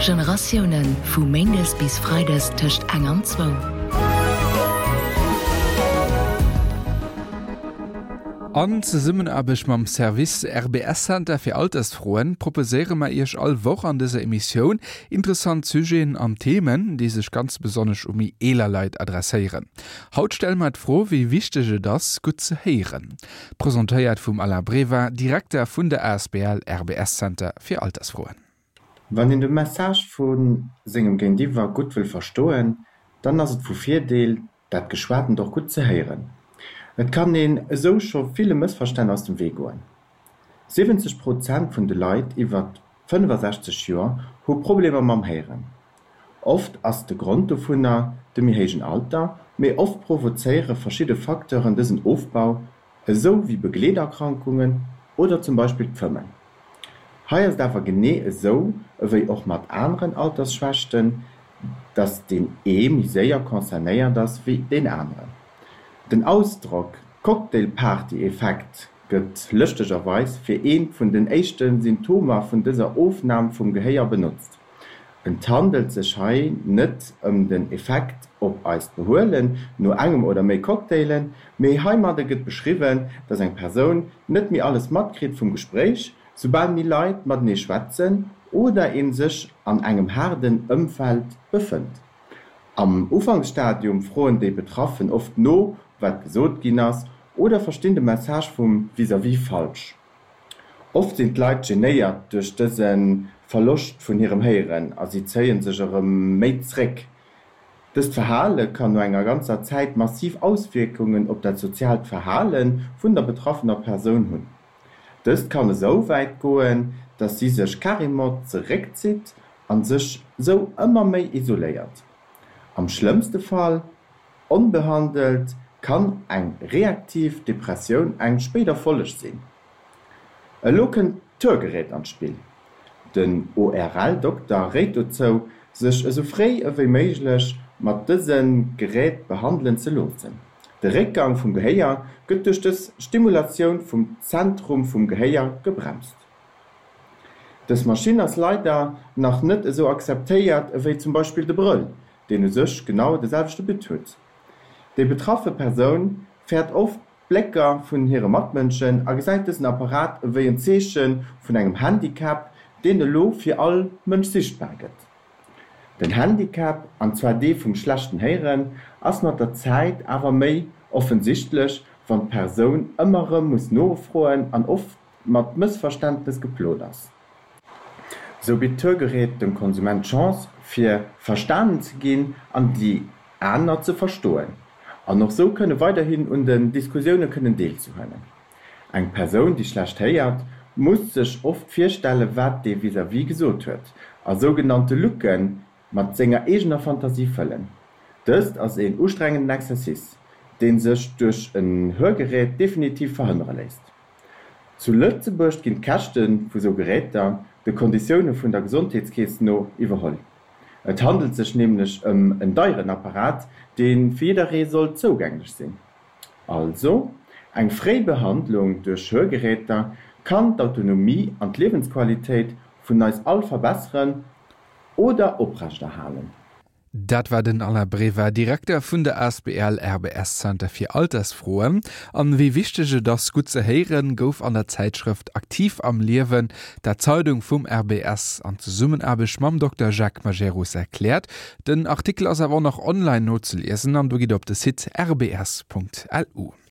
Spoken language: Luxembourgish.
Generatiounen, vu méindes bis freides tëscht eng an zwou. An Zesummenaarbecht mam Service RBS Center fir Altersfroen proposéiere mer Iech all Woch an dëser Emissioun interessant Sujeten an Themen, déi sech ganz besonnesch u méi eeler Leit adresséieren. Haut stelle mer d'Fro, wéi wichteg et ass, gutt ze héieren. Presentéiert vum Alain Breva, Direkter vun der asbl RBS Center fir Altersfroen. Wann een de Message vu sengem Géintiwwer gutt wëll verstoen, dann ass et vu Virdeel, dat Geschwatent och gutt ze héieren. Et kann een esou scho ville Mëssverstänn aus dem Wee goen. 70 Prozent vun de Leit iwwer 65 Joer hu Problemer mam Héieren. Oft ass de Grond dovunner de méi héijen Alter, mee oft provozéiere verschidde Facteuren dësen Ofbau, esou wéi Begleeterkrankungen oder zum Beispill d'Fëmmen. Hei ass et awer genee esou ewéi och mat aneren Altersschwächten, dass deen ee méi séier concernéiert ass wéi deen aneren. Den Ausdrock Cocktailparty-Effekt gëtt lëschtegerweis fir eent vun den éischte Symptomer vun dëser Ofnam vum Gehéier benotzt. Et handelt sech hei net ëm den Effekt op eist Behuelen no engem oder méi Cocktailen, mee heimadde gëtt beschriwwen, dass eng Persoun net méi alles matkritt vum Gespréich, soubal méi Leit matenee schwätzen oder een sech an engem haarden Ëmfeld befënnt. Am Ufanksstadium froen déi Betraffen oft no, wat gesot ginn ass, oder verstinn de Message vum Vis-à-vis falsch. Oft sinn d'Leit genéiert duerch dëse Verloscht vun hirem Héieren a si zéie sech erëm méi zréck. Dëst Verhale kann no enger ganzer Zäit massiv Auswierkungen op dat soziaalt Verhale vun der betraffener Persoun hunn. Dëst kann esou wäit goen, dass si sech carrément zeréckzitt a sech sou ëmmer méi isoléiert. Am schlëmmste Fall Onbehandelt kann eng reaktiv Depressioun eng spéider Folleg sinn. Elo kënnt d'Hörgerät an d'Spill. Den ORL-Dokter réit dozou, sech esou fréi ewéi méiglech mat dëse Gerät behandelen ze loossen. De Réckgang vum Gehéier gëtt duerch dës Stimulatioun vum Zentrum vum Gehéier gebremst. Dës Maschinn ass leider nach net esou akzeptéiert ewéi zum Beispill de Brëll, deen u sech genau de selwechte But huet. Déi betraffe Persoun fäert oft d'Blécker vun hire Matmënschen a gesäit dësen Apparat ewéi en Zeeche vun engem Handicap, deen elo fir all Mënsch sichtbar gëtt. Den Handicap, an zwar dee vum schlechten Héieren, ass mat der Zäit awer méi offensichtlech, wann d'Persoun ëmmer erëm muss nofroen an oft mat Mëssverständnes geplot ass. Sou bitt d'Hörgerät dem Konsument d'Chance fir verstanen ze ginn an déi aner ze verstoen an och sou kënne weiderhin un den Diskussioune kënnen deelzehuelen. Eng Persoun déi schlecht héiert, muss sech oft virstelle wat dee vis-à-vis gesot huet a sougenannte Lücke mat senger eegener Fantasie fëllen. Dëst ass een ustrengenden Exercice, dee sech duerch en Hörgerät definitiv verhënnere léisst. Zu Lëtzebuerg ginn d'Käschte vu sou Geräter de Konditioune vun der Gesondheetskeess no iwwerholl. Et handelt sech nämlech ëm en deieren Apparat, dee fir jidderee soll zougänglech sinn. Also, eng fréi Behandlung duerch Hörgeräter kann d'Autonomie an d'Liewensqualitéit vun eis all verbesseren oder oprechterhalen. Dat war den Alain Breva, Direkter vun der asbl RBS Center fir Altersfroen. An wéi wichteg et ass, gutt ze héieren, gouf an der Zäitschrëft Aktiv am Liewen, der Zeidung vum RBS, an Zesummenaarbecht mam Dokter Jacques Majerus erkläert. Den Artikel ass awer och nach online nozeliesen an do gitt der op de Site rbs.lu.